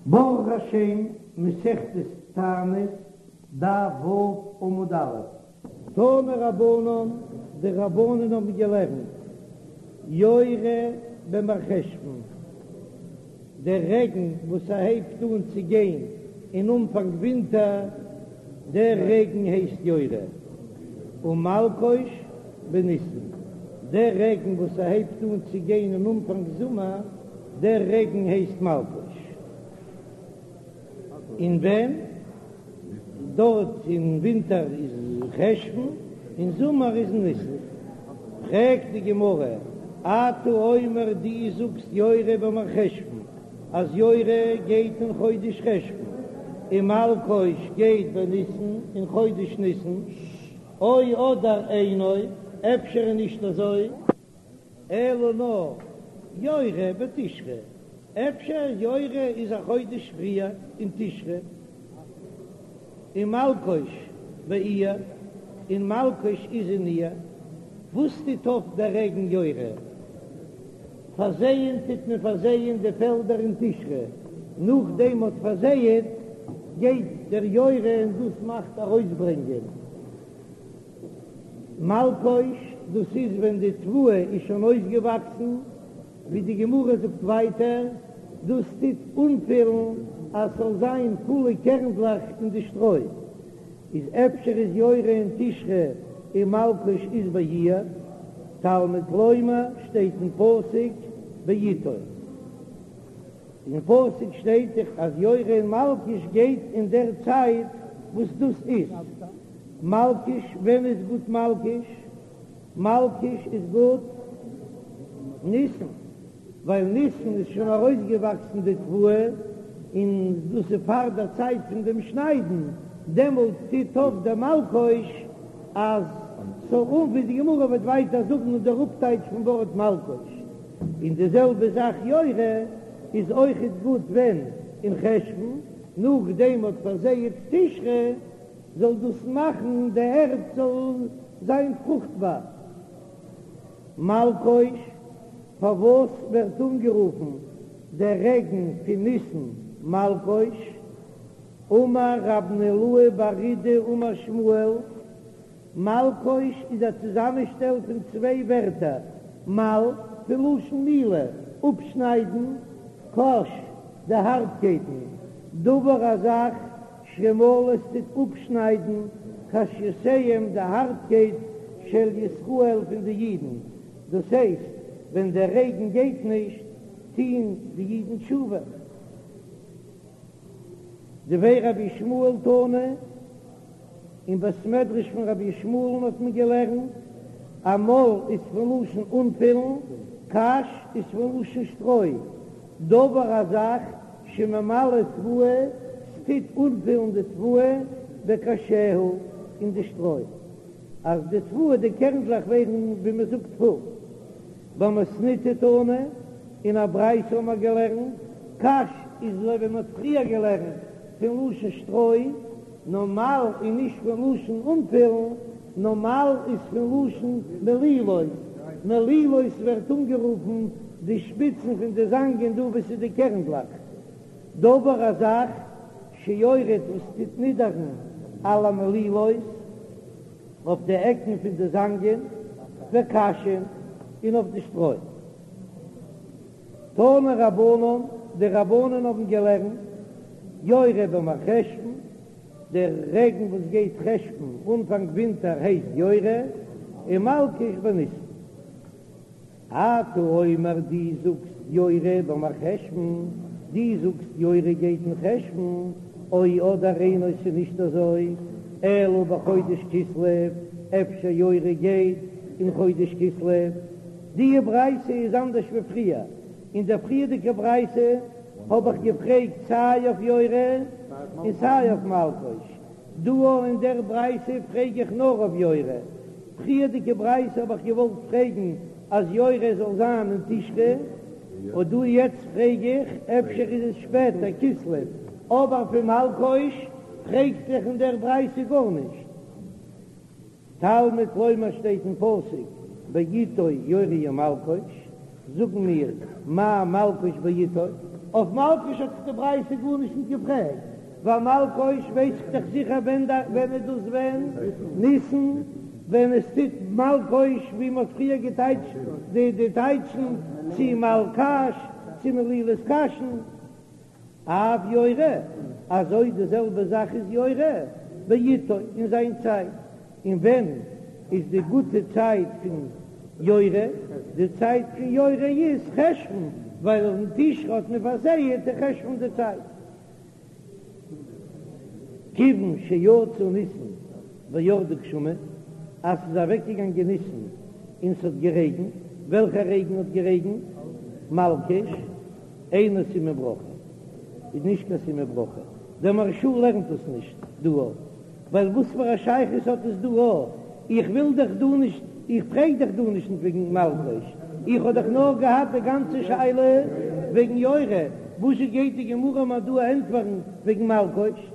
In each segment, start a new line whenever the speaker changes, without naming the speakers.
ברוך השם, מסכת תענית, דף ו' עמוד א'. תנו רבנן, די רבנן האבן געלערנט, יורה במרחשוון, דער רעגן וואס ס'הייבט אן צו גיין אין אנפאנג ווינטער, דער רעגן הייסט יורה, ומלקוש בניסן, דער רעגן וואס ס'הייבט אן צו גיין אין אנפאנג זומער, דער רעגן הייסט מלקוש. און ווען? דארט אין ווינטער איז חשוון, אין זומער איז ניסן. פרעגט די גמרא, אתה אומר דו זאגסט יורה במרחשוון אז יורה גייט אין חודש חשוון, און מלקוש גייט בניסן אין חודש ניסן, או אדער אינו, אפשר איז נישט אזוי? אלא נאר יורה בתשרי, אפשר יורה איז א חודש פריער אין תשרי, און מלקוש באייר, און מלקוש איז אין אייר, וואס טוט אויף דער רעגן יורה? פארזייען טוט מען פארזייען די פעלדער אין תשרי, נאכדעם מ'האט פארזייעט גייט דער יורה און דאס מאכט ארויסברענגען. מלקוש, דאס איז ווען די תבואה איז שוין אויסגעוואקסן, ווי די גמרא זאגט ווייטער, דאס טוט אנפילן אז ס'זאל זיין פולע קערנדלעך אין די שטרוי, איז אפשר איז יורה אין תשרי און מלקוש איז באייר, תלמוד לומר שטייט אין פסוק בעתו. אין פסוק שטייט דאך אז יורה און מלקוש גייט אין דער צייט וואס דאס איז מלקוש, ווען איז גוט מלקוש? מלקוש איז גוט ניסן, ווייל ניסן איז שוין ארויסגעוואקסן די תבואה, און דאס איז פאר דער צייט פון דעם שניידן, דעמאלט טוט אויף דער מלקוש אז ס'זאל אן ווי די גמרא וועט ווייטער זאגן אין דער אפטייטש פון ווארט מלקוש. און די זעלבע זאך יורה איז אויכעט גוט ווען אין חשוון, נאכדעם מ'האט פארזייעט תשרי זאל דאס מאכן די ערד זאל זיין פרוכטבאר. מלקוש, פארוואס ווערט אנגערופן דער רעגן פון ניסן מלקוש? אמר רב נהילאי בר אידי אמר שמואל, מלקוש איז א צוזאמענשטעל פון צוויי ווערטער, מל, פון לשון מילה, אפשניידן, קש, די הארטקייטן, דבר א זאך, שמל עס טוט אפשניידן, קשיותיהם די הארטקייט של ישראל פון די אידן, דאס הייסט, ווען דער רעגן גייט נישט, טוהן די אידן תשובה. דבי רבי ישמעאל תנא. אין בית מדרש פון רבי ישמעאל'ן האט מען געלערנט, אז מל איז פון לשון אנפילן, קש איז פון לשון שטרוי, דבר א זאך שממלא תבואה, ס'טוט אנפילן די תבואה, בקשיה, אין די שטרוי, אז די תבואה די קערנדלעך ווערן ווי מען זאגט פול. במתניתא תנא, אין א ברייתא האט מען געלערנט, קש איז אזוי ווי מען האט פריער געלערנט פון לשון שטרוי, נאר מל איז נישט פון לשון אנפילן, נאר מל איז פון לשון מלילות, מלילות ווערט אנגערופן די שפיצן פון די זאנגען דא וואו ס'איז די קערנדלעך. דבר א זאך שיורד וואס טוט נידערן על המלילות אויף די עקן פון די זאנגען, וקשין, און אויף די שטרוי. תנו רבנן, די רבנן האבן געלערנט, יורה במרחשוון, דער רעגן וואס גייט חשוון אנפאנג ווינטער הייסט יורה, און מלקוש בניסן. אתה אומר דו זאגסט יורה במרחשוון, דו זאגסט יורה גייט אין חשוון, או אדער אינו ס'איז נישט אזוי, אלא בחודש כסלו, אפשר יורה גייט אין חודש כסלו. די ברייתא איז אנדערש ווי פריער, אין דער פריערדיגער ברייתא האב איך געפרעגט סיי אויף יורה און סיי אויף מלקוש, דא אין דער ברייתא פרעג איך נאר אויף יורה, פריערדיגע ברייתא האב איך געוואלט פרעגן אז יורה זאל זיין אין תשרי, און דא יעצט פרעג איך אפשר איז עס שפעטער כסלו, אבער פון מלקוש פרעגט זיך אין דער ברייתא גארנישט. תלמוד לומר שטייט אין פסוק בעתו יורה ומלקוש, זאגן מיר מה מלקוש בעתו? אויף מלקוש האט דאך די ברייתא גארנישט נישט געפרעגט, ווייל מלקוש ווייס איך דאך זיכער ווען ווען איז דאס ווען ניסן, ווען עס טוט מלקוש ווי מען האט פריער געטייטשט די די טייטשן צו מלקש צו מלילת קשין. אף יורה, אזוי די זעלבע זאך איז יורה בעתו אין זיין צייט, און ווען איז די גוטע צייט פון יורה? די צייט פון יורה איז חשוון, ווייל אין תשרי האט מען פארזייעט אין חשוון די צייט. כיוון שיצא ניסן וירדו גשמים, אז ס'איז אוועקגעגאנגען ניסן און ס'האט גערעגנט, וועלכע רעגן האט גערעגנט? מלקוש. אינו סימן ברכה איז נישט קיין סימן ברכה, דער מהרש"א לערנט עס נישט דא אויף, ווייל וואס פאר א שייכות האט עס דא אויף, איך וויל דאך דא נישט, איך פרעג דאך דא נישט וועגן מלקוש, איך האב דאך נאר געהאט די גאנצע שאלה וועגן יורה, וואזשע גייט די גמרא מיר דא ענטפערן וועגן מלקוש?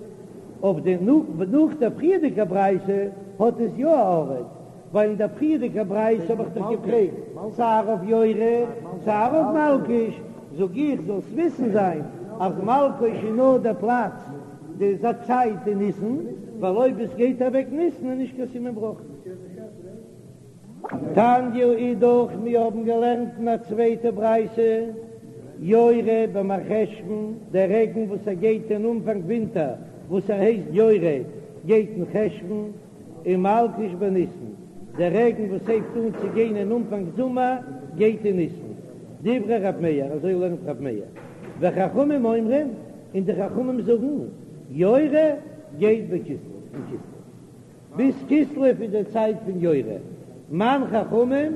אויף די נאך דער פריערדיגע ברייתא האט עס יא א ארט, ווייל אין דער פריערדיגער ברייתא האב איך דאך געפרעגט סיי אויף יורה סיי אויף מלקוש, זאג איך זאלסט וויסן זיין אז מלקוש איז נאר דער פלאץ די צייט אין ניסן, ווייל אויב עס גייט אוועק ניסן איז נישט קיין סימן ברכה. תניא אידך, מיר האבן געלערנט אין א צווייטע ברייתא, יורה במרחשוון, דער רעגן וואס ער גייט אין אנפאנג ווינטער וואס ער הייסט יורה גייט אין חשוון, און מלקוש בניסן, דער רעגן וואס הייבט אן צו גיין אין אנפאנג זומער גייט אין ניסן, דברי ר' מאיר, אזוי לערנט ר' מאיר, וחכמים אומרים, און די חכמים זאגן, יורה גייט בכסלו, אין כסלו, ביז כסלו איז די צייט פון יורה, מאן חכמים,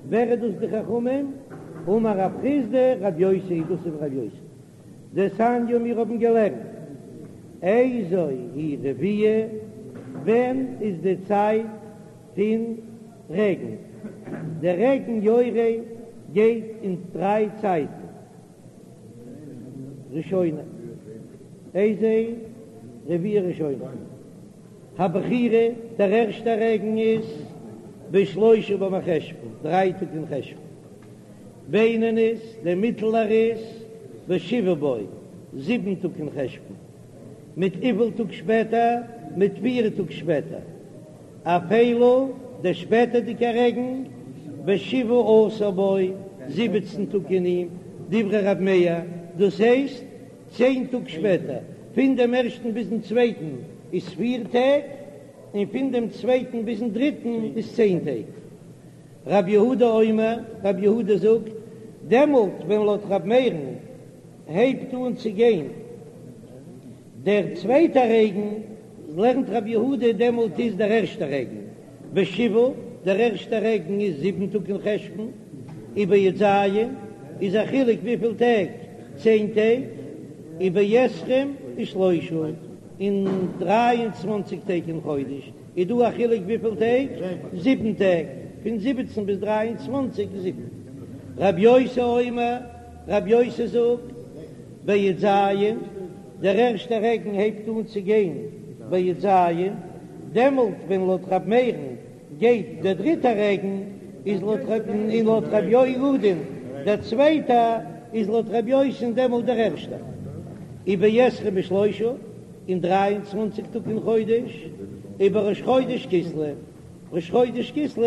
ווער איז דאס די חכמים? אמר רב חסדא, רב יוסי, דאס איז רב יוסי. דתניא מיר האבן געלערנט איזו היא רביעה, ווען איז די צייט פון רעגן? דער רעגן יורה גייט אין דריי צייטן, ראשונה, איזו רביעה ראשונה, הבכירה, דער ערשטער רעגן איז בשלושה במרחשוון, דריי טאג אין חשוון. בינונית, דער מיטלער איז בשבעה בו, זיבן טאג אין חשוון, מיט וויפיל טאג שפעטער? מיט פיר טאג שפעטער. אפילה, דער שפעטערדיגער רעגן, בשבעה עשר בו, זיבעצן טאג אין אים, דברי רב מאיר, דאס הייסט צען טאג שפעטער, פון דעם ערשטן ביזן צווייטן איז פיר טעג, און פון דעם צווייטן ביזן דריטן איז צען טעג. רב יהודה אומר, רב יהודה זאגט, דעמאלט ווען לויט רב מאיר'ן הייבט אן צו גיין דער צווייטער רעגן, לערנט רב יהודה דעמאלט איז דער ערשטער רעגן בשבעה, דער ערשטער רעגן איז זיבן טאג אין חשוון, ובי"ז איז א חילוק וויפיל טעג, צען טעג, ובעשרים ושלושה, און דריי און צוואנציג טעג אין חודש. איז דא א חילוק וויפיל טעג? זיבן טעג, פון זיבעצן ביז דריי און צוואנציג איז זיבן. רב יוסי אומר, רב יוסי זאגט, בי"ז, דער ערשטער רעגן הייבט אן צו גיין בי"ז, דעמאלט ווען לויט רב מאיר'ן גייט דער דריטער רעגן, איז לויט רב און לויט רב יהודה'ן דער צווייטער, איז לויט רב יוסי'ן דעמאלט דער ערשטער. ובעשרים ושלושה. אין דריי און צוואנציג טאג אין חודש, ובראש חודש כסלו, ראש חודש כסלו,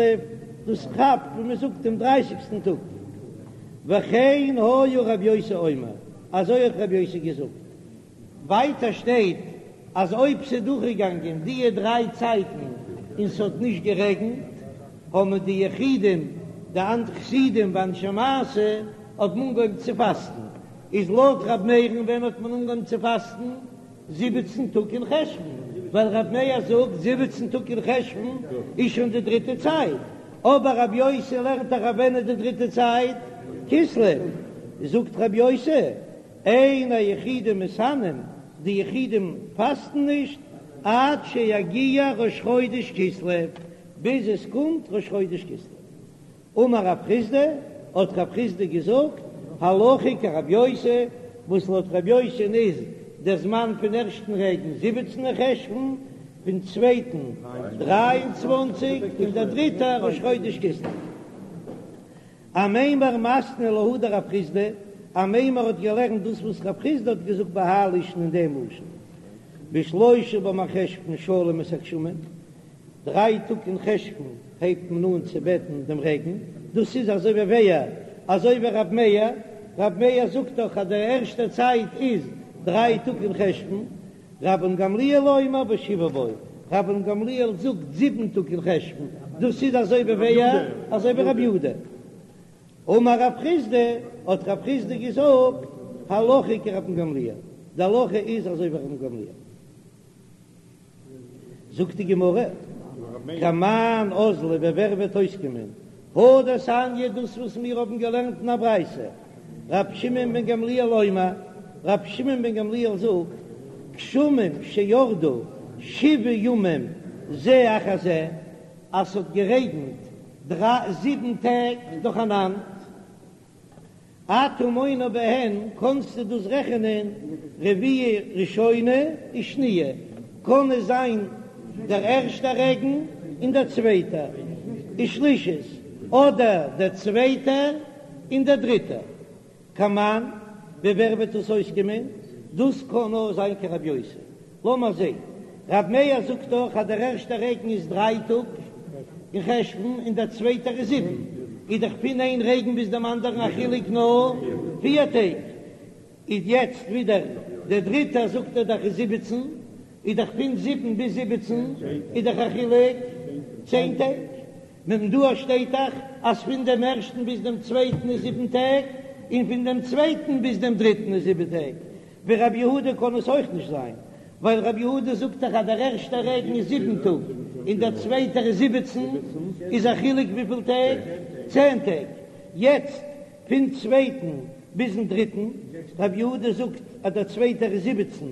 דאס כאפט ווי מען זאגט דעם דרייסיגסטן טאג, וכן היה רב יוסי אומר, אזוי האט רב יוסי געזאגט. ווייטער שטייט אז אויב ס'איז דורכגעגאנגען דיע דריי צייטן און ס'האט נישט גערעגנט, האבן די יחידים, די חסידים ואנשי מעשה האבן אנגעהויבן צו פאסטן, איז לויט ר' מאיר'ן ווען האט מען אנגעהויבן צו פאסטן? זיבעצן טאג אין חשוון, ווייל ר' מאיר זאגט זיבעצן טאג אין חשוון איז שוין די דריטע צייט, אבער רב יוסי לערנט דאך אז ווען איז די דריטע צייט? כסלו, זאגט רב יוסי אין היחידים מתענין, די יחידים פאסטן נישט עד שיגיע ראש חודש כסלו, ביז עס קומט ראש חודש כסלו. אמר רב חסדא, האט רב חסדא געזאגט, הלכה כרב יוסי, וואס לויט רב יוסי'ן איז דער זמן פון ערשטן רעגן זיבעצן אין חשוון, פון צווייטן דריי און צוואנציג, און דער דריטער ראש חודש כסלו. אמימר מתני להא דרב חסדא, אמימר האט געלערנט דאס וואס רב חסדא האט געזאגט בהאי לישנא אין דעם לשון, בשלושה במרחשוון שואלים את הגשמים, דריי טאג אין חשוון הייבט מען אן צו בעטן דעם רעגן, דאס איז אזוי ווי ווער? אזוי ווי רב מאיר, רב מאיר זאגט דאך אז די ערשטע צייט איז דריי טאג אין חשוון, רבן גמליאל אומר בשבעה בו, רבן גמליאל זאגט זיבן טאג אין חשוון, דאס איז אזוי ווי ווער? אזוי ווי רבי יהודה. אמר רב חסדא, האט רב חסדא געזאגט, הלכה כרבן גמליאל, די הלכה איז אזוי ווי רבן גמליאל. זאגט די גמרא, כמאן אזלא ווי ווער וועט אויסקומען הא דתניא דאס וואס מיר האבן געלערנט אין א ברייתא, רבי שמעון בן גמליאל אומר, רבי שמעון בן גמליאל זאגט, גשמים שירדו שבעה ימים זה אחר זה, אז ס'האט גערעגנט זיבן טעג נאכאנאנד, אתה מונה בהן, קאנסטו דאס רעכענען רביעה ראשונה ושניה, קען עס זיין דער ערשטער רעגן און דער צווייטער, ושלישית, אדער דער צווייטער און דער דריטער. כמאן, ווי ווער וועט דאס אויסקומען? דאס קען נאר זיין כרבי יוסי. לאמער זעהן, רב מאיר זאגט דאך אז דער ערשטער רעגן איז דריי טאג אין חשוון און דער צווייטער איז זיבן, איז דאך פון איין רעגן ביז דעם אנדערן א חילוק נאר פיר טעג, איז יעצט ווידער דער דריטער זאגט ער דאך איז זיבעצן, איז דאך פון זיבן ביז זיבעצן איז דאך א חילוק צען טעג. נו דא שטייט דאך אז פון דעם ערשטן ביז דעם צווייטן איז זיבן טעג, און פון דעם צווייטן ביז דעם דריטן איז זיבן טעג. ווי רבי יהודה קען עס אויך נישט זיין, ווייל רבי יהודה זאגט דאך אז דער ערשטער רעגן איז זיבן טאג און דער צווייטער איז זיבעצן, איז א חילוק וויפיל טעג? צען טעג. יעצט פון צווייטן ביזן דריטן, רבי יהודה זאגט אז דער צווייטער איז זיבעצן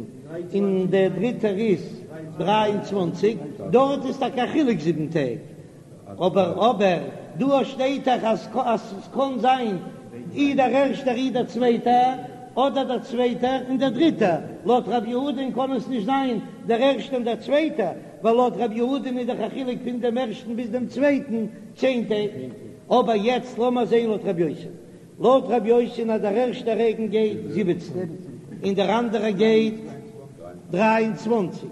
און דער דריטער איז דריי און צוואנציג, דארט איז טאקע א חילוק זיבן טעג, אבער אבער דא שטייט דאך אז אז ס'קען זיין אי דער ערשטער אי דער צווייטער, אדער דער צווייטער און דער דריטער, לויט רבי יהודה'ן קען עס נישט זיין דער ערשטער און דער צווייטער, ווייל לויט רבי יהודה'ן איז דאך א חילוק פון דעם ערשטן ביז דעם צווייטן צען טעג. אבער יעצט לאמער זעהן לויט רבי יוסי. לויט רבי יוסי'ן אז דער ערשטער רעגן גייט זיבעצן און דער אנדערער גייט דריי און צוואנציג,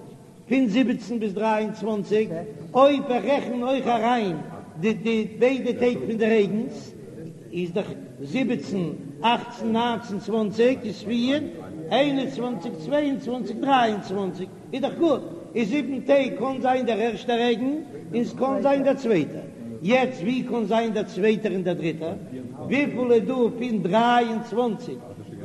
פון זיבעצן ביז דריי און צוואנציג, אויב איך רעכן אויך אריין די די ביידע טעג פון די רעגנס, איז דאך זיבעצן, אכצן, ניינצן, צוואנציג איז פיר, איין און צוואנציג, צוויי און צוואנציג, דריי און צוואנציג. איז דאך גוט, איז זיבן טעג קאן זיין דער ערשטער רעגן און ס'קאן זיין דער צווייטער, יעצט ווי קאן זיין דער צווייטער און דער דריטער? וויפיל איז דא פון דריי און צוואנציג?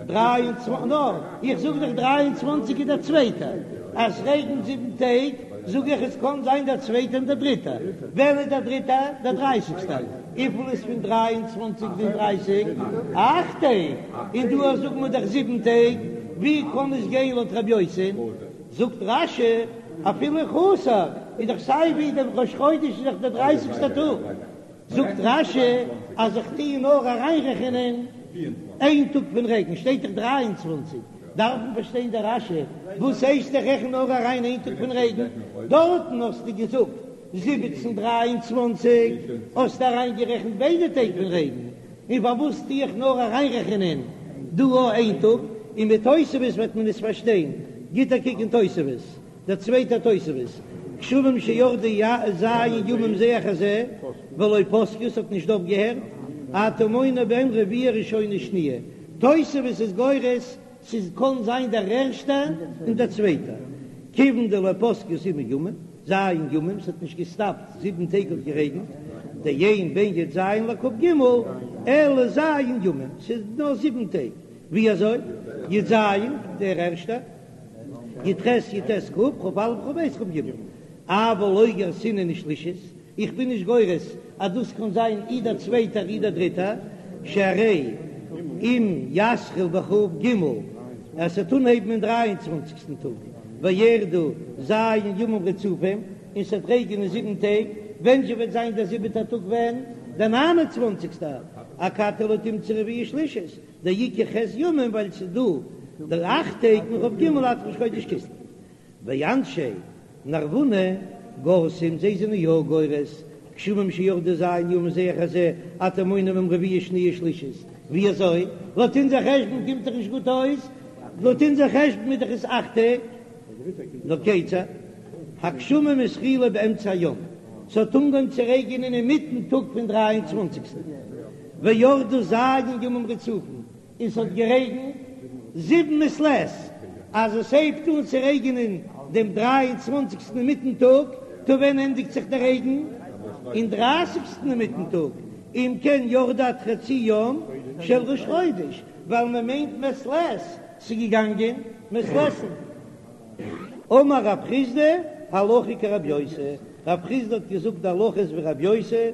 דריי און צוואנ נא, איך זאג דאך דריי און צוואנציג איז דער צווייטער, אז ס'רעגנט זיבן טעג זאג איך עס קאן זיין דער צווייטער און דער דריטער, ווען איז דער דריטער? דער דרייסיגסטער, וויפיל איז פון דריי און צוואנציג ביז דרייסיג? אכט טעג, און דא זאגן מיר דאך זיבן טעג, ווי קאן עס גיין לויט רבי יוסי? זאגט רש"י, אפילו חסר, איז דאך סיי ווי דער ראש חודש איז דאך דער דרייסיגסטער טאג, זאגט רש"י אז איך טוה נאר אריינרעכענען איין טאג פון רעגן, שטייט דאך דריי און צוואנציג, דארף מען פארשטיין די רש"י, וואס הייסט איך רעכן נאר אריין איין טאג פון רעגן, דארטן האסטו געזאגט זיבעצן דריי און צוואנציג, האסטו אריינגערעכנט ביידע טעג פון רעגן, און פארוואס טו איך נאר אריינרעכענען דא אויך איין טאג, און מיט תוספות וועט מען עס פארשטיין, גיט א קוק אין תוספות, דער צווייטער תוספות, גשמים שירדו ז' ימים זה אחר זה, ולא פסקו, ס'האט נישט אויפגעהערט, אתה מונה בהן רביעה ראשונה שניה, תוספות איז גורס ס'איז קאן זיין דער ערשטער און דער צווייטער, כיוון דלא פסקו זיבן ימים, ז' ימים, ס'האט נישט געסטאפט זיבן טעג האט גערעגנט, דאין בין י"ז לכ"ג אלא ז' ימים, ס'איז נאר זיבן טעג, ווי אזוי? י"ז דער ערשטער, י"ח י"ט כ' כ"א כ"ב כ"ג, אבל לא גרסינן שלישית, איך בין נישט גורס אז דאס קען זיין אי דער צווייטער אי דער דריטער, שהרי אם יתחיל בכ"ג אז ס'וועט אנהייבן אין דריי און צוואנציגסטן טאג, וירדו ז' ימים רצופים, און ס'וועט רעגענען זיבן טעג, ווען זשע וועט זיין דער זיבעטער טאג ווען? דער ניין און צוואנציגסטער, אכתי לא תמצא רביעה שלישית, דאיכא ח' ימים ווייל ס'איז דא דער אכט טעג מכ"ג עד ראש חודש כסלו. ואנשי נרבונה גורסים, זיי זענען יא גורס, גשמים שירדו ז' ימים זה אחר זה, אתה מונה בהם רביעה שניה שלישית. ווי אזוי? לויט אונזער חשבון קומט דאך נישט גוט אויס, לויט אונזער חשבון איז דאך עס אכט טעג. נאר כיצד? הגשמים התחילו באמצע היום, ס'האט אנגעהויבן צו רעגענען אינמיטן טאג פון דריי און צוואנציגסטן, וירדו ז' ימים רצופים, און ס'האט גערעגנט זיבן מעת לעת, אז עס הייבט אן צו רעגענען דעם דריי און צוואנציגסטן אינמיטן טאג, טא ווען ענדיגט זיך דער רעגן? אין דרייסיגסטן אינמיטן טאג, אם כן ירדו עד חצי יום של ראש חודש, ווייל מען מיינט מעת לעת, ס'איז געגאנגען מעת לעת'ן. אמר רב חסדא, הלכה כרבי יוסי, רב חסדא האט געזאגט די הלכה איז ווי רבי יוסי,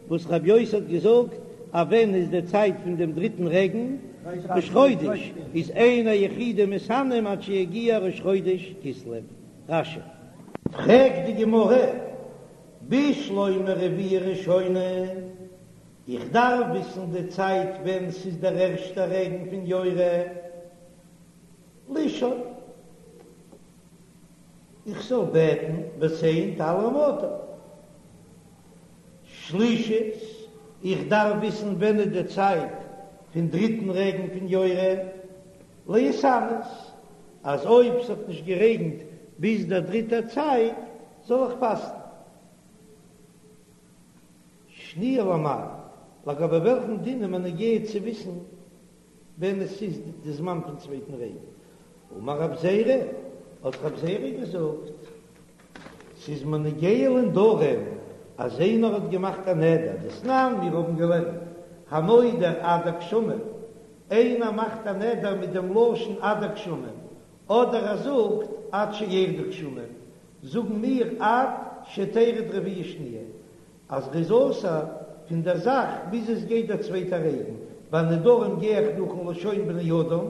וואס רבי יוסי האט געזאגט אז ווען איז די צייט פון דעם דריטן רעגן? ראש חודש, איז אין היחידים מתענין עד שיגיע ראש חודש כסלו. רש"י. פרעגט די גמרא, בשלמא רביעה ראשונה, איך דארף וויסן די צייט ווען ס'איז דער ערשטער רעגן פון יורה, לשאול, איך זאל בעטן ותן טל ומטר. שלישית, איך דארף וויסן ווען איז די צייט פון דריטן רעגן פון יורה, להתענות, אז אויב ס'האט נישט גערעגנט ביז דער דריטער צייט זאל איך פאסטן. שניה למאי, לגבי וועלכן דין איז מיר נוגע צו וויסן ווען עס איז די זמן פון צווייטן רעגן? אמר רב זירא, האט רב זירא געזאגט, ס'איז מיר נוגע לנדרים אז איינער האט געמאכט א נדר, דתנן, מיר האבן געלערנט, הנודר עד הגשמים, איינער מאכט א נדר מיט דעם לשון עד הגשמים, אדער ער זאגט עד שירדו גשמים, זאגן מיר עד שתרד רביעה שניה, אז ר'איז אסור פון דער זאך ביז עס גייט דער צווייטער רעגן, ביי נדרים גיי איך נאכן לשון בני אדם,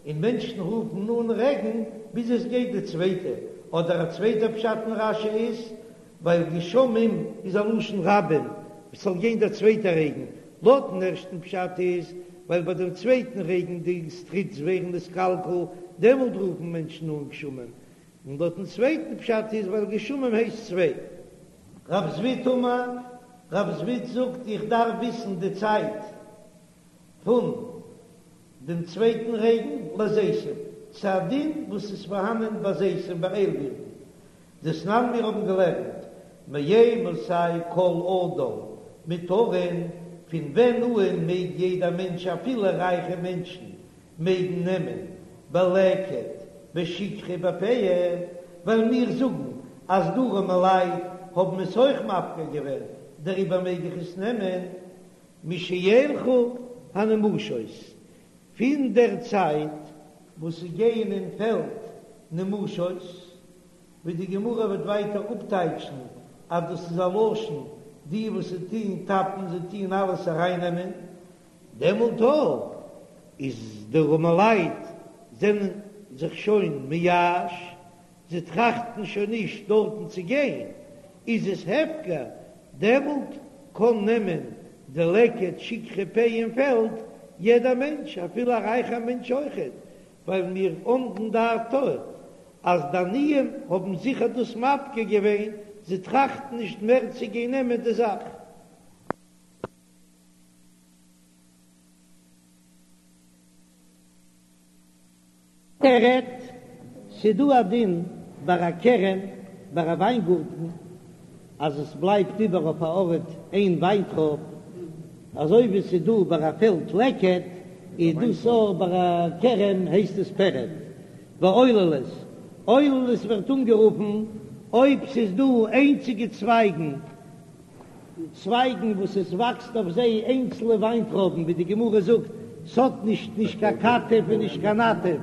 און מענטשן רופן אן רעגן ביז עס גייט די צווייטע, אדער א צווייטער פשט אין רש"י איז, ווייל גשמים איז א לשון רבים, עס זאל גיין דער צווייטער רעגן, לויטן ערשטן פשט איז, ווייל ביי דעם צווייטן רעגן די סטריטס ווערן נתקלקל, דעמאלט רופן מענטשן אן גשמים, און לויטן צווייטן פשט איז ווייל גשמים הייסט צוויי. רב זביד אמר, רב זביד זאגט איך דארף וויסן די צייט פון דעם צווייטן רעגן לזיתים, ס'איז א דין וואס איז פארהאנען ביי זיתים ביי איילבירטן, דתנן מיר האבן געלערנט מאימתי כל אדם מותרין, פון ווען אהן מעג יעדער מענטש אפילו רייכע מענטשן מעגן נעמען בלקט בשכחה בפאה, ווייל מיר זאגן אז די ארעמעלייט האבן עס אויך מפקיר געווען, דעריבער מעג איך עס נעמען משילכו הנמושות, פון דער צייט וואס ס'גייען אין פעלד נמושות, ווי די גמרא וועט ווייטער אפטייטשן אז דאס איז א לשון די וואס זיי טוען טאפן, זיי טוען אלעס ארייננעמען, דעמאלט אויך איז די ארעמעלייט זענען זיך שוין מייאש, זיי טראכטן שוין נישט דארטן צו גיין, איז עס הפקר, דעמאלט קען נעמען די לקט שכחה פאה אין פעלד יעדער מענטש אפילו א רייכער מענטש אויכעט, ווייל מיר עומדין דעתו אז די עניים האבן זיכער דאס מפקיר געווען, זיי טראכטן נישט מער צו גיין נעמען די זאך. פרד, ס'דא א דין ביי א כרם, ביי א וויינגארטן, אז עס בלייבט איבער אויף א ארט איין וויינטרויב, אזוי ווי ס'איז דא ביי א פעלד לקט, איז דאס אויך ביי א כרם הייסט עס פרד. ועוללות, עוללות ווערט אנגערופן אויב ס'איז דא איינציגע צווייגן, צווייגן וואס עס וואקסט אויף זיי איינצלע וויינטרויבן, ווי די גמרא זאגט, ס'האט נישט נישט קיין כתף און נישט קיין נטף,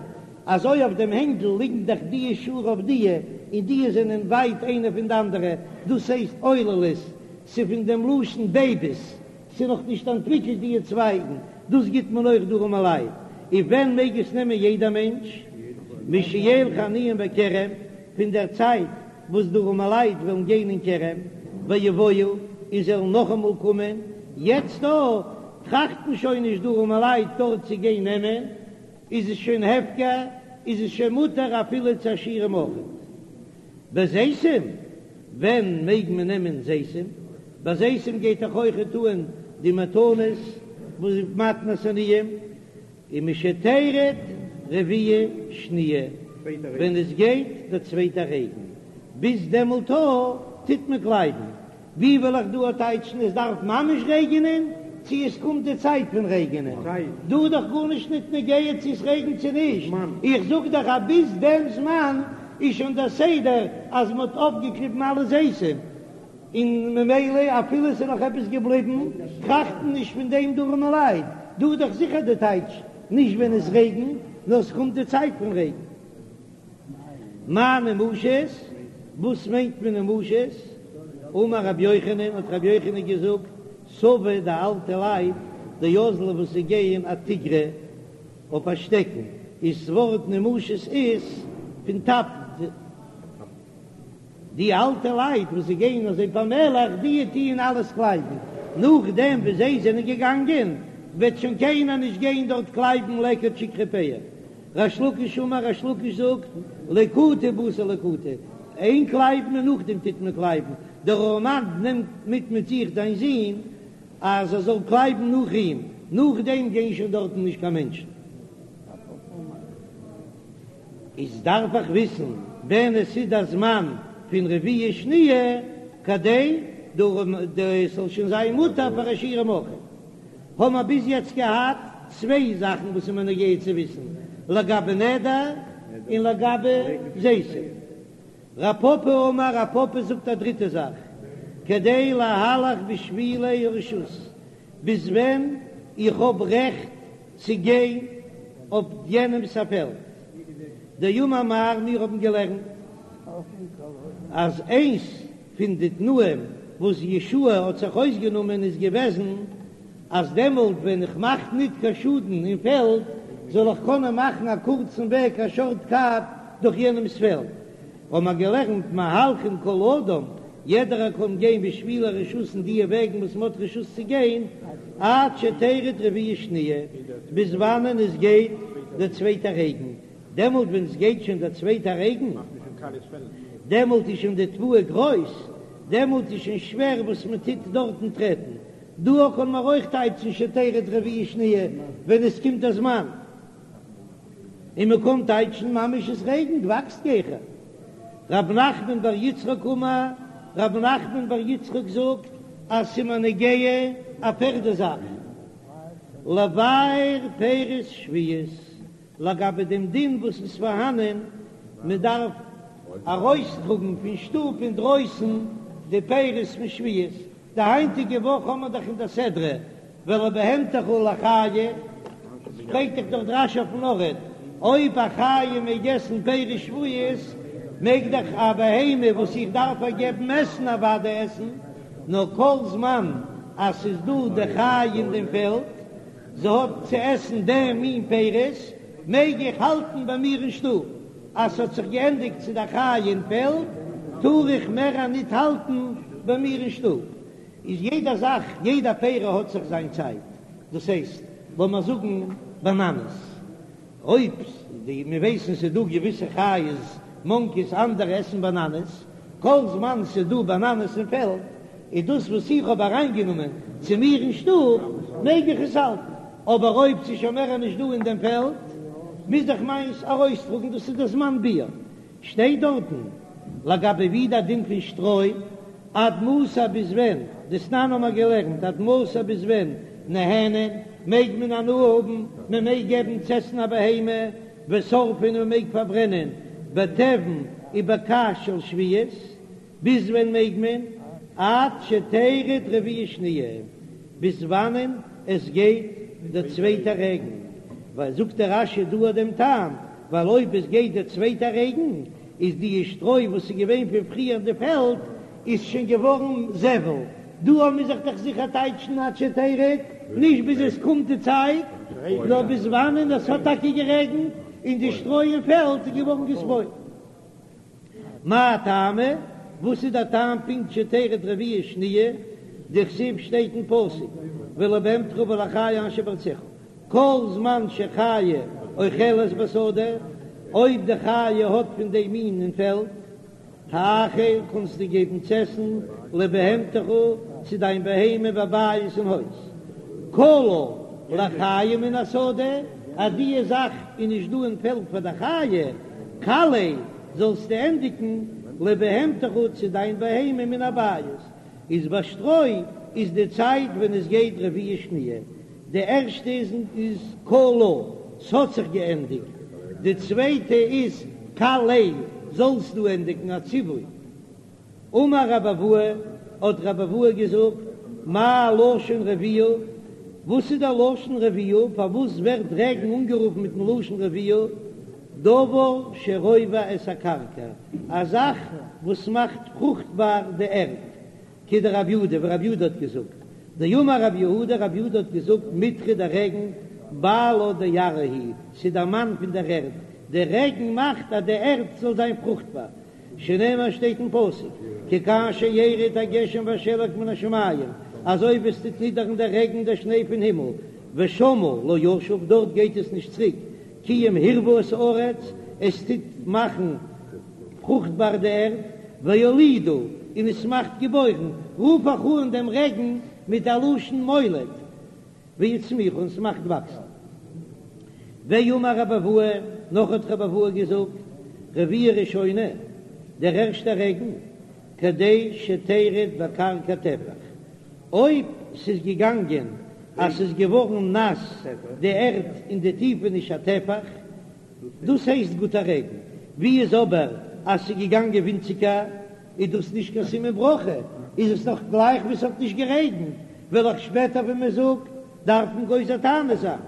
אזוי אויף דעם הענגל ליגן דאך דיע שורה אויף דיע, און דיע זענען ווייט איינע פון די אנדערע, דאס הייסט עוללות, ס'איז פון דעם לשון בעיביס, ס'איז נאך נישט אנטוויקלט דיע צווייגן, דאס גיט מען אויך די ארעמעלייט, און ווען מעג עס נעמען יעדער מענטש? משילכו העניים בכרם, פון דער צייט וואס די ארעמעלייט וועלן גיין אין כרם, ויבואו, און זיי וועלן נאכאמאל קומען, יעצט דא טראכטן שוין נישט די ארעמעלייט דארט צו גיין נעמען, איז עס שוין הפקר, איז עס שוין מותר אפילו צו עשירים אויכעט. בזיתים, ווען מעג מען נעמען זיתים? ביי זיתים גייט דאך אויכעט אן די מתנות. וואס איז מתנת עניים, ומשתרד רביעה שניה, ווען עס גייט דער צווייטער רעגן, ביז דעמאלט טוט מען קלייבן. ווי וועל איך דא טייטשן עס דארף ממש רעגענען, צו עס קומט די צייט פון רעגענען? דא איז דאך גארנישט ניט נוגע צו עס רעגנט צו נישט, איך זאג דאך אז ביז דעם זמן איז שוין דער סדר אז מען האט אויפגעקליבן אלע זיתים, און ממילא אפילו עס איז נאך עפעס געבליבן, טראכטן נישט פון דעם די ארעמע לייט, דא איז דאך זיכער די טייטש נישט ווען עס רעגנט, נאר עס קומט די צייט פון רעגן. מאי נמושות? וואס מיינט מען נמושות? אמר רבי יוחנן, האט רבי יוחנן געזאגט, סבי די אלטע לייט, דאזלי וואס זיי גייען אתיגרא אויף א שטעקן, איז ס'ווארט נמושות איז פון טאפן. די אלטע לייט וואס זיי גייען אזוי פאמעלעך, די טוען אלעס קלייבן, נאכדעם ווי זיי זענען געגאנגען וועט שוין קיינער נישט גיין דארט קלייבן לקט שכחה פאה. ריש לקיש אמר, ריש לקיש זאגט, ליקוטה בתר ליקוטה, איין קלייבן און נאכדעם טוט מען קלייבן, דער ארעמאן נעמט מיט מיט זיך זיין זון אז ער זאל קלייבן נאך אים, נאכדעם גייען שוין דארטן נישט קיין מענטשן. איז דארף איך וויסן ווען עס איז דער זמן פון רביעה שניה כדי עס זאל שוין זיין מותר פאר עשירים אויך. האבן מיר ביז יעצט געהאט צוויי זאכן וואס איז מיר נוגע צו וויסן לגבי נדר און לגבי זיתים. רב פפא אמר, רב פפא זאגט א דריטע זאך, כדי להלך בשבילי הרשות, ביז ווען איך האב רעכט צו גיין אויף יענעמס א פעלד. דאמר מר, מיר האבן געלערנט אז איינס פון די תנאים וואס יהושע האט זיך אויסגענומען איז געוועזן אז דעמאלט ווען איך מאך ניט קיין שאדן אין פעלד זאל איך קענען מאכן א קורצן וועג א שארט קאט דורך יענעמס פעלד. האבן מיר געלערנט מהלכין כל אדם, יעדערער קען גיין בשבילי הרשות אין דיע וועגן וואס מ'האט רשות צו גיין, עד שתרד רביעה שניה, ביז וואנען עס גייט דער צווייטער רעגן, דעמאלט ווען עס גייט שוין דער צווייטער רעגן, דעמאלט איז שוין די תבואה גרויס, דעמאלט איז שוין שווער וואס מען טוט דארטן טרעטן, דא קען מען אויך טייטשן שתרד רביעה שניה ווען עס קומט דער זמן. און מען קען טייטשן ממש עס רעגנט וואקסט גיכער. רב נחמן בר יצחק אמר, רב נחמן בר יצחק זאגט אז ס'איז מיר נוגע א פערדע זאך, לבער פירות שביעית, לגבי דעם דין וואס איז פארהאנען, מען דארף ארויסטראגן פון שטוב אינדרויסן די פירות פון שביעית, די היינטיגע וואך האמער דאך אין די סדרה ולבהמתך ולחיה, פרעגט דאך דארט רש"י אויפן ארט, אויב א חיה מעג עסן פירות שביעית, מעג דאך א בהמה וואס איך דארף איר געבן עסן אוודאי עסן, נאר כל זמן אז ס'איז דא די חיה אין דעם פעלד, זי האט צו עסן דעם מין פירות, מעג איך האלטן ביי מיר אין שטוב. אז ס'האט זיך געענדיגט צו די חיה אין פעלד, טאר איך מער ניט האלטן ביי מיר אין שטוב. איז יעדע זאך, יעדע פרי האט זיך זיין צייט. דאס הייסט, לאמיר זאגן באנאנעס, אויב די מיר ווייסן ס'איז דא געוויסע חיות, מאנקיס, אנדערע עסן באנאנעס, כל זמן ס'איז דא באנאנעס אין פעלד, איז דאס וואס איך האב אריינגענומען צו מיר אין שטוב, מעג איך עס האלטן. אבער אויב ס'איז שוין מער נישט דא אין דעם פעלד, מוז איך מיינס ארויסטראגן, דאס איז דער זמן ביעור. שטייט דארטן לגבי ווי דער דין פון שטרוי, עד מתי ביז ווען, דתנן האבן מיר געלערנט, עד מתי ביז ווען, נהנין, מעג מען הנאה האבן, מען מעג געבן צו עסן א בהמה, ושורפין און מען מעג פארברענען, בתבן ובקש של שביעית. ביז ווען מעג מען? עד שתרד רביעה שניה, ביז וואנען עס גייט דער צווייטער רעגן, ווייל זאגט דער רש"י דא אט דעם טעם, ווייל אויב עס גייט דער צווייטער רעגן, איז די שטרוי וואס איז געווען פון פריער אין די פעלד איז שוין געווארן זבל, דא מוז איך דאך זיכער טייטשן עד שתרד, נישט ביז עס קומט די צייט, נאר ביז וואנען עס האט טאקע גערעגנט און די שטרוי אין פעלד איז געווארן געספוילט. מאי טעמא? וואס איז דער טעם פונקט שתרד רביעה שניה? דכתיב שטייט אין פסוק ולבהמתך ולחיה אשר בארצך כל זמן שחיה אוכלת בשדה, אויב די חיה האט פון דעם מין אין פעלד, האכל קענסטו געבן צו עסן לבהמתך צו דיין בהמה בבית אין הויז, כלה. לחיה מן השדה, אז דיע זאך איז נישט דא אין פעלד פאר די חיה, כלה, זאלסטו ענדיגן לבהמתך צו דיין בהמה מן הבית, איז ביי שטרוי איז די צייט ווען עס גייט רביעה שניה, די ערשטע איז איז כלה, ס'האט זיך געענדיגט, די צווייטע איז כלה, זאלסטו ענדיגן א ציווי. אמר רבי אבהו, האט רבי אבהו געזאגט, מה לשון רביעה, וואס איז דער לשון רביעה, פארוואס ווערט רעגן אנגערופן מיטן לשון רביעה, דבר שרובע את הקרקע, א זאך וואס מאכט פרוכטבאר די ערד, כדרב יהודה, ווי רב יהודה האט געזאגט, דאמר רב יהודה, רב יהודה האט געזאגט, מיטרא דער רעגן, בעלה דארעא הוא, ס'איז דער מאן פון דער ערד, דער רעגן מאכט אז די ערד זאל זיין פרוכטבאר, שנאמר שטייט אין פסוק, כי כאשר ירד הגשם והשלג מן השמים, אזוי ווי עס טוט נידערן דער רעגן דער שניי פון הימל, ושמה לא ישוב, דארט גייט עס נישט צוריק, כי אם הרווה את הארץ, עס טוט מאכן פרוכטבאר די ערד, והולידה, און עס מאכט געבוירן, רוף איך אן דעם רעגן מיט א לשון מוליד, והצמיחה, און ס'מאכט וואקסן. ואמר רבי אבהו, נאך האט רבי אבהו געזאגט, רביעה ראשונה, דער ערשטער רעגן, כדי שתרד בקרקע טפח, אויב ס'איז געגאנגען אז ס'איז געווארן נאס די ערד אין די טיפעניש א טפח, דאס הייסט גוטע רעגן, ווי איז אבער אז ס'איז געגאנגען ווינציגער, איז דאס נישט קיין סימן ברכה, איז עס נאך גלייך ווי ס'האט נישט גערעגנט, וועל איך שפעטער ווען מען זאגט דארפן גוזר תענית זיין.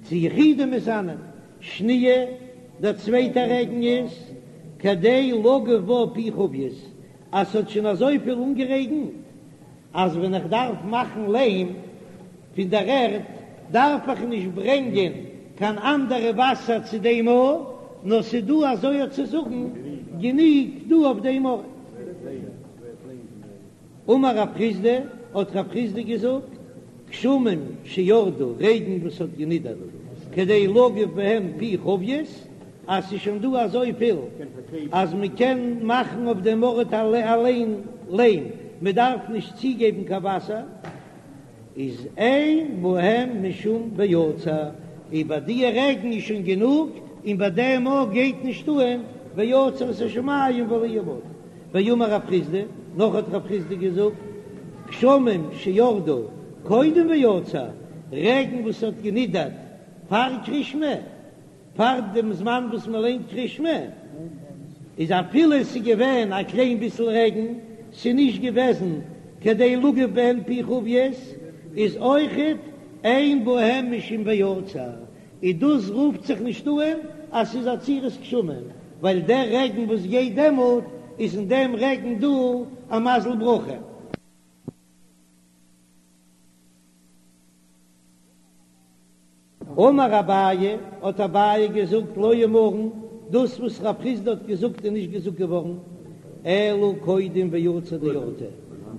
צו יחידים מתענין. שניה, דער צווייטער רעגן איז כדי לגוף בה פי חביות, אז ס'האט שוין אזויפיל אנגערעגנט אז ווען איך דארף מאכן ליים פון דער ערד דארף איך נישט ברענגען קיין אנדערע וואסער צו דעם ארט, נאר ס'איז דא אזוי אויף צו זאגן גענוג דא אויף דעם ארט. אמר רב חסדא, האט רב חסדא געזאגט, גשמים שירדו, רעגן וואס האט גענידערט, כדי לגוף בהם פי חביות, אז ס'איז שוין דא אזויפיל אז מ'קען מאכן אויף דעם ארט אליין ליים, מ'דארף נישט צוגעבן קיין וואסער, איז אין בהם משום ועצר, איז ביי די רעגן איז שוין גענוג, און ביי דעם ארט גייט נישט אן ועצר את השמים ולא יהיה מטר. ואמר רב חסדא, נאך האט רב חסדא געזאגט, גשמים שירדו קודם ועצר, רעגן וואס האט גענידערט פאר קרישמע, פאר דעם זמן וואס מען ליינט קרישמע, איז אפילו עס איז געווען א קליין ביסל רעגן, ס'איז נישט געוועזן כדי לגוף בהן פי חביות, איז אויכעט אין בהם משום ועצר, איז דאס רופט זיך נישט אן אז ס'איז עצירת גשמים, ווייל דער רעגן וואס גייט דעמאלט איז אין דעם רעגן דא א מזל ברכה. אמר אביי, האט אביי געזאגט, לא אמרן, דאס וואס רב חסדא האט געזאגט איז נישט געזאגט געווארן, אלא קודם ועצר דאורתא,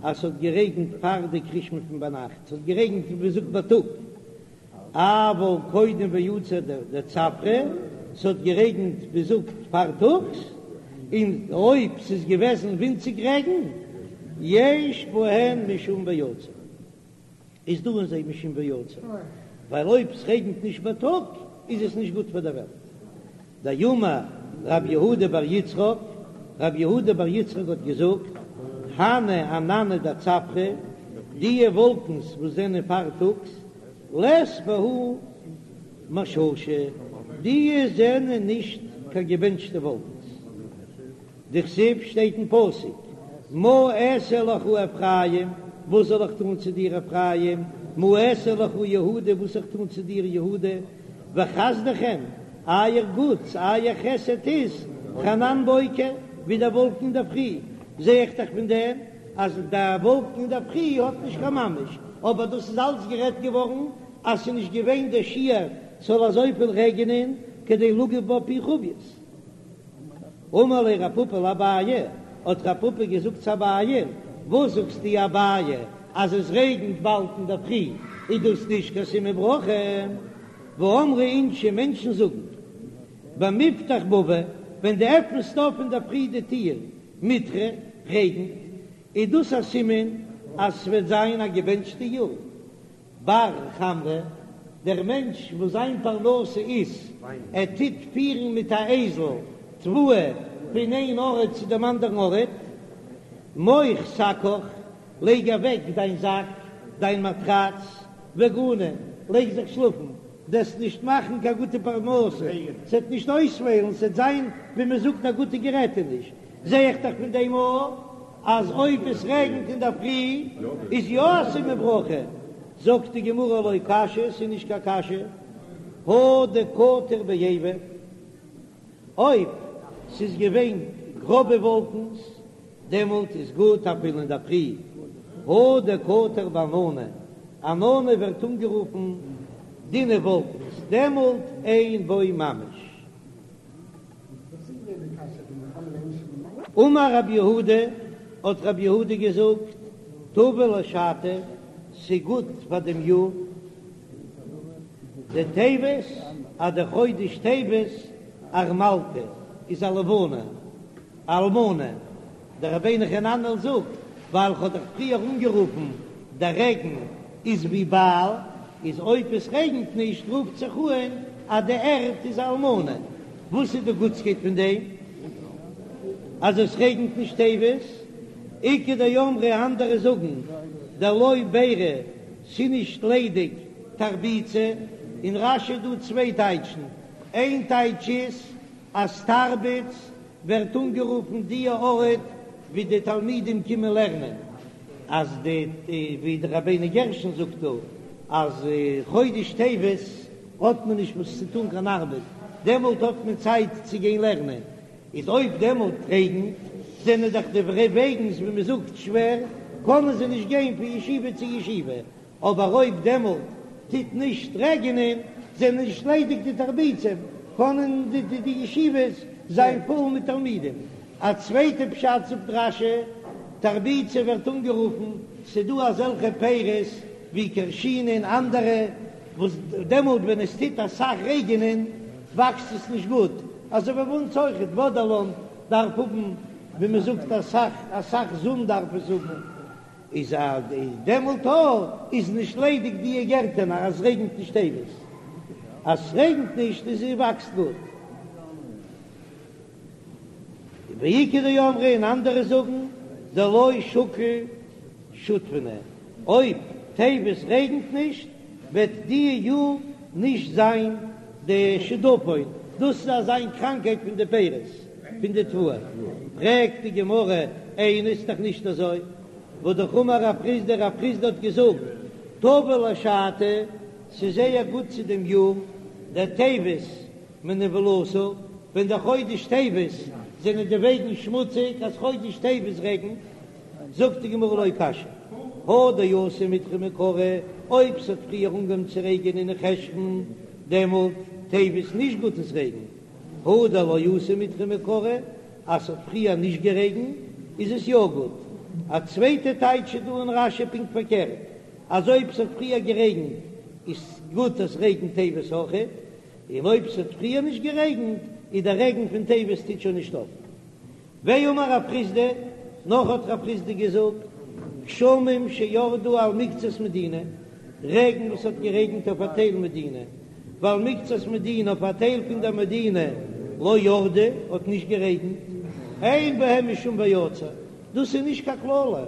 אז ס'האט גערעגנט פאר די קרישמע פון ביינאכט, ס'האט גערעגנט ווי מ'זאגט בייטאג, אבל קודם ועצר דצפרא, ס'האט גערעגנט ווי מ'זאגט פארטאגס, און אויב ס'איז געוועזן ווינציג רעגן, יש בהן משום ועצר. איז דא אין זיי משום ועצר, ווייל אויב ס'רעגנט נישט בייטאג איז עס נישט גוט פאר דער וועלט. דאמר רב יהודה בר יצחק, רב יהודה בר יצחק האט געזאגט, הני ענני דצפרא, דיע וואלקנס וואס זענען פארטאגס, לית בהו מששא, דיע זענען נישט קיין געבענטשטע וואלקנס. דכתיב שטייט אין פסוק, מה אעשה לך אפרים, וואס זאל איך טאן צו דיר אפרים, מה אעשה לך יהודה, וואס זאל איך טאן צו דיר יהודה, וחסדכם, אייער גוטס, אייער חסד איז, כענן בוקר, ווי דער וואלקן אינדערפרי, זע איך דאך פון דעם אז דער וואלקן אינדערפרי האט נישט קיין ממש, אבער דאס איז אלץ גערעדט געווארן אז ס'איז נישט געווען דער שיעור ס'זאל אזויפיל רעגענען כדי לגוף בה פי חביות. אמר ליה רב פפא לאביי, האט רב פפא געזאגט צו אביי, וואס זאגסטו אביי אז עס רעגנט באלד אינדערפרי איז דאס נישט קיין סימן ברכה? והאמרי אינשי מענטשן זאגן במפתח בבא ווען דו עפנסט אויף אינדערפרי די טיר מיטרא רעגנט איז דאס א סימן אז ס'וועט זיין א געבענטשטע יאר. בר חמרא, דער מענטש וואס זיין פרנסה איז ער טוט פירן מיט א אייזל תבואה פון איין ארט צו דעם אנדערן ארט, מוך שקך, לייג אוועק דיין זאק, דיין מאטראץ, וגני, לייג זיך שלאפן, דו'סט נישט מאכן קיין גוטע פרנסה, ס'עט נישט אויספעלן, ס'עט זיין ווי מ'זאגט א גוטע גערעטעניש, זע איך דאך פון דעם אויך אז אויב עס רעגנט אינדערפרי איז יא א סימן ברכה, זאגט די גמרא לא קשיא, ס'איז נישט קיין קשיא, הא דקטיר בעיבא, אויב ס'איז געווען גראבע וואלקנס דעמאלט איז גוט אפילו אינדערפרי, הא דקטיר בענני, ענני ווערט אנגערופן דינע וואלקנס, דעמאלט אין בו ממש. אמר רב יהודה, האט רב יהודה געזאגט, טבא לשתא, ס'גוט פאר דעם יאר, דטבת, אז דער חודש טבת ארמלתא איז א לבנה, אלמנה, דער רבינו חננאל זאגט, ווייל כ'האב דאך פריער אנגערופן דער רעגן איז ווי בעל, איז אויב עס רעגנט נישט רופט זיך אן אז די ערד איז אלמנה. וואס איז די גוטסקייט פון דעם אז עס רעגנט נישט טבת? איכא דאמרי אנדערע זאגן דלא ביירי ס'נישט ליידיג תרביצא, אין רש"י איז דא צוויי טייטשן, איין טייטש איז אז תרביץ ווערט אנגערופן די ארט ווי די תלמידים קומען לערנען, אז די ווי די רבינו גרשון זאגט דא אז חודש טבת האט מען נישט וואס צו טון קיין ארבעט, דעמאלט האט מען צייט צו גיין לערנען, איז אויב דעמאלט רעגנט זענען דאך די וועגנס ווי מען זאגט שווער, קענען זיי נישט גיין פון ישיבה צו ישיבה, אבער אויב דעמאלט טוט נישט רעגענען, זענען נישט ליידיג די תרביצים, קענען די ישיבות זיין פול מיט תלמידים. א צווייטע פשט זאגט רש"י, תרביצא ווערט אנגערופן, ס'דא אזעלכע פירות ווי כרשינא און אנדערע, וואס דעמאלט ווען עס טוט אסאך רעגענען וואקסט עס נישט גוט, אזוי ווי ביי אונז אויכעט, וואדערלאן דארף האבן ווי מ'זאגט אסאך אסאך זון דארף עס האבן. איז אז דעמאלט אויך איז נישט ליידיג די גערטענער אז רעגנט נישט טבת, אז ס'רעגנט נישט איז עס וואקסט גוט. ואיכא דאמרי און אנדערע זאגן דלא שקיל שדפונא, אויב טבת רעגנט נישט וועט די יאר נישט זיין די שדפון, דאס איז אזא קראנקייט פון די פירות פון די תבואה, פרעגט די גמרא איני ס'איז דאך נישט אזוי, והא אמר רב חסדא רב חסדא האט געזאגט טבא לשתא, ס'איז זייער גוט צו דעם יאר דטבת מנוולתא, ווען דער חודש טבת זענען די וועגן שמוציג אז חודש טבת רעגנט, זאגט די גמרא לא קשיא, הא דאתא מיטרא מעיקרא, אויב ס'האט פריער אנגעהויבן צו רעגענען אין חשון, דעמאלט טבת נישט גוט עס רעגנט, הא דלא אתא מיטרא מעיקרא, אז ס'האט פריער נישט גערעגנט איז עס יא גוט. א צווייטע טייטש איז דא אין רש"י פונקט פארקערט, אז אויב ס'האט פריער גערעגנט איז גוט עס רעגנט טבת אויכעט, און אויב ס'האט פריער נישט גערעגנט איז דער רעגן פון טבת טוט שוין נישט אויף. ואמר רב חסדא, נאך האט רב חסדא געזאגט, גשמים שירדו על מקצת מדינה, רעגן וואס האט גערעגנט אויף א טייל מדינה, ועל מקצת מדינה אויף א טייל פון דער מדינה לא ירדו, האט נישט גערעגנט, אין בהם משום ויצר, דאס איז נישט קיין קללה,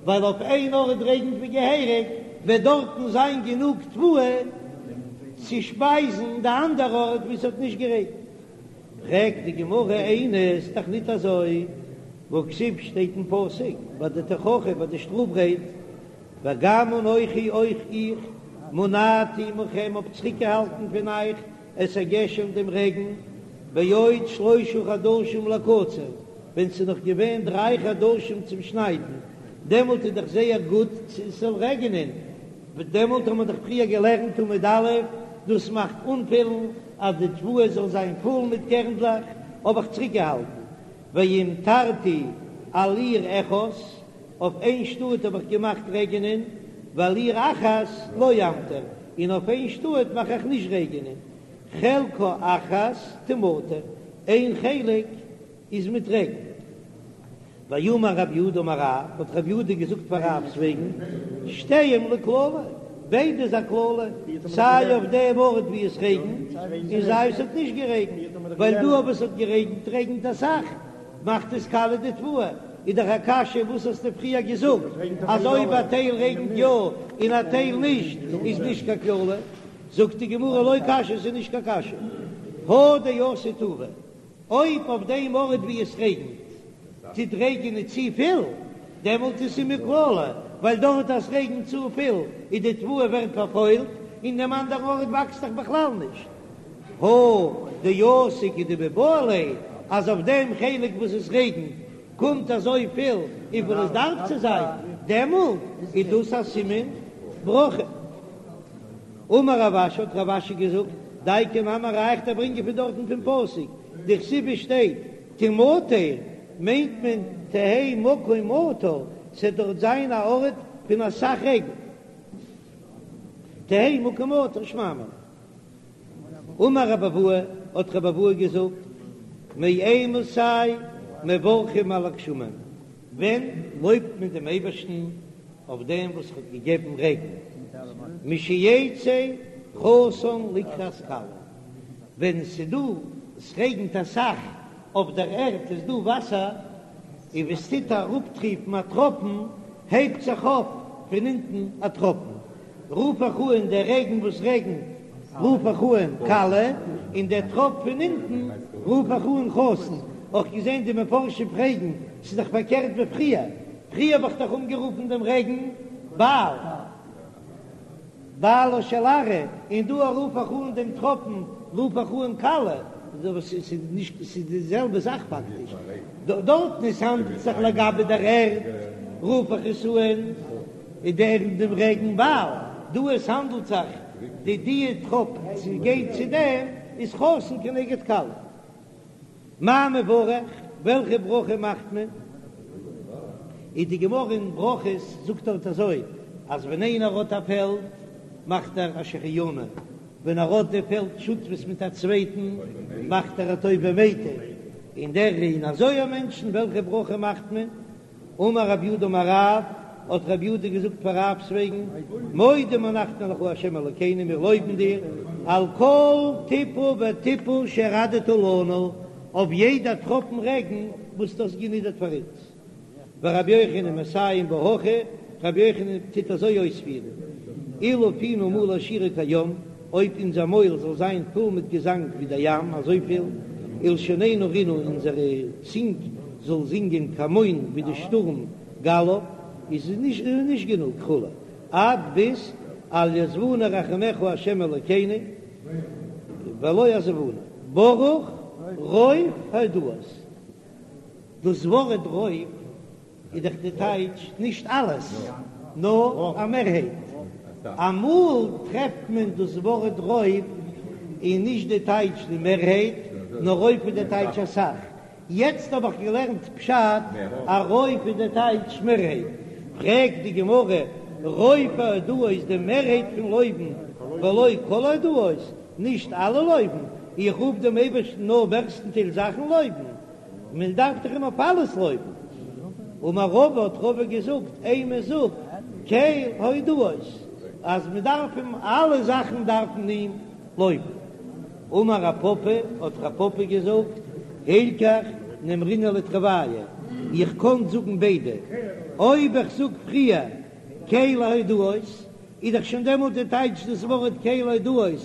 ווייל אויף איין ארט רעגנט ווי געהעריג, וועט דארטן זיין גענוג תבואה צו שפייזן די אנדערע ארט וואו ס'האט נישט גערעגנט. פרעגט די גמרא איני ס'איז דאך ניט אזוי, והכתיב שטייט אין פסוק ביי די תוכחה ביי די שטראף רייד, וגם אנכי אויך איך מנעתי מכם האב צוריקגעהאלטן פון אייך את הגשם דעם רעגן, בעוד שלשה חדשים לקציר, ווען ס'איז נאך געווען דריי חדשים צום שניידן, דעמאלט איז דאך זייער גוט ס'זאל רעגענען, דעמאלט האט מען דאך פריער געלערנט עמוד א', דאס מאכט אנפילן אז די תבואה זאל זיין פול מיט קערנדלעך, האב איך צוריקגעהאלטן, והמטרתי על עיר אחת, אויף איין שטאט האב איך געמאכט רעגענען, ועל עיר אחת לא אמטיר, און אויף איין שטאט מאך איך נישט רעגענען, חלקה אחת תמטר, איין חלק איז מיט רעגן. ואמר רב יהודה אמר רב, האט רב יהודה געזאגט פאר רב'ס וועגן, שתיהם לקללה, ביידע איז א קללה, סיי אויף דעם ארט ווי עס רעגנט, און סיי עס האט נישט גערעגנט, ווייל דא אויב עס האט גערעגנט רעגנט אסאך, מאכט עס קאליע די תבואה, איז דאך א קשיא וואס האסטו פריער געזאגט אז אויב א טייל רעגנט יא און א טייל נישט איז נישט קיין קללה, זאגט די גמרא לא קשיא ס'איז נישט קיין קשיא, הא דאתי טובא, אויב אויף דעם ארט ווי עס רעגנט טוט רעגענען צופיל, דעמאלט איז סימן קללה, ווייל דארט אז ס'רעגנט צופיל איז די תבואה ווערט פארפוילט, אין דעם אנדערן ארט וואקסט דאך בכלל נישט. הא דאתי כדמיבעי ליה, אז אויף דעם חלק וואס עס רעגנט קומט אזוי פיל וויפיל עס דארף צו זיין, דעמאלט איז דאס א סימן ברכה. אמר רב אשי, האט רב אשי געזאגט, דייקא נמי א ראיה איך דיר ברענגען פון דארטן פון פסוק, דכתיב עס שטייט תמטר, מיינט מען תהא מקום מטר, ס'עט דארט זיין א ארט פון אסאך רעגן, תהא מקום מטר שמע מינה. אמר רבי אבהו, האט רבי אבהו געזאגט, מאימתי מברכים על הגשמים, ווען לויבט מען דעם אייבערשטן אויף דעם וואס האט געגעבן רעגן, משיצא חתן לקראת כלה, ווען ס'דא, ס'רעגנט אסאך אויף דער ערד איז דא וואסער, און ווען ס'טוט אראפטריפן א טראפן, הייבט זיך אויף פון אונטן א טראפן, רוף איך אן דער רעגן וואס רעגנט רוף איך אן כלה, און דער טראפ פון אונטן רוף איך אן חתן, אויך געזען די מפרשים פרעגן, ס'איז דאך פארקערט ווי פריער, פריער האב איך דאך אנגערופן דעם רעגן בעל, בעלה של ארעא, און דא רוף איך אן דעם טראפן רוף איך אן כלה, ס'איז נישט, ס'איז די זעלבע זאך פאקטיש, דארטן עס האנדלט זיך לגבי דער ערד רוף איך עס אן. איז דער דעם רעגן בעל, דא עס האנדלט זיך די די טראפ צו גייט צו דעם איז חתן כנגד כלה. מאי מברך, וועלכע ברכה מאכט מען? איז די גמרא אין ברכות זאגט דארט אזוי אז ווען איינער האט א פעלד מאכט ער א שהחיינו, ווען ער האט די פעלד שותפות מיט א צווייטן מאכט ער הטוב והמיטיב, און דער און אזוי א מענטשן וועלכע ברכה מאכט מען? אמר רב יהודה אמר רב, האט רב יהודה געזאגט פאר רב'ס וועגן, מודים אנחנו לך ה' אלוקינו, מיר לויבן דיר, על כל טיפה וטיפה שהורדת לנו, אויף יעדע טראפן רעגן וואס דו האסט גענידערט פאר אונז. ורבי יוחנן מסיים בה הכי, רבי יוחנן טוט אזוי אויספירן, אילו פינו מלא שירה כים, אויב אונזער מויל זאל זיין פול מיט געזאנג ווי דער ים, אזויפיל, ולשוננו רינה, אונזערע צינג זאל זינגען כהמון ווי די שטורם גליו, איז עס נישט גענוג כו', עד ביז אל יעזבונו רחמיך ה' אלוקינו ולא עזבונו, ברוך רוב הודאות. דאס ווארט רוב איז דאך די טייטש נישט אלעס, נאר א מערהייט. אמאל טרעפט מען דאס ווארט רוב איז נישט די טייטש די מערהייט, נאר רוב איז די טייטש אסאך. יעצט האב איך געלערנט פשט אז רוב איז די טייטש מערהייט. פרעגט די גמרא, רוב ההודאות די מערהייט פון לויבן, ולא כל ההודאות, נישט אלע לויבן, איך רוף דעם אייבערשטן נאר מערסטנטייל זאכן לויבן, מען דארף דאך אים אויף אלעס לויבן. אמר רבא האט רבא געזאגט, אימא זאג קל הודאות, אז מען דארף אים אלע זאכן דארף מען אים לויבן. אמר רב פפא האט רב פפא געזאגט, הילכך נימרינהו לתרוייהו, איך קען זאגן ביידע, אויב איך זאג פריער קל ההודאות, איז דאך שוין דעמאלט די טייטש דאס ווארט קל הודאות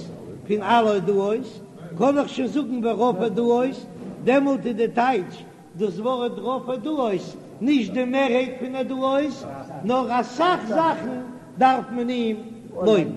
פון אלע הודאות, קען איך שוין זאגן ורוב הודאות, דעמאלט איז די טייטש דאס ווארט רוב הודאות נישט די מערהייט פון הודאות, נאר אסאך זאכן דארף מען אים לויבן.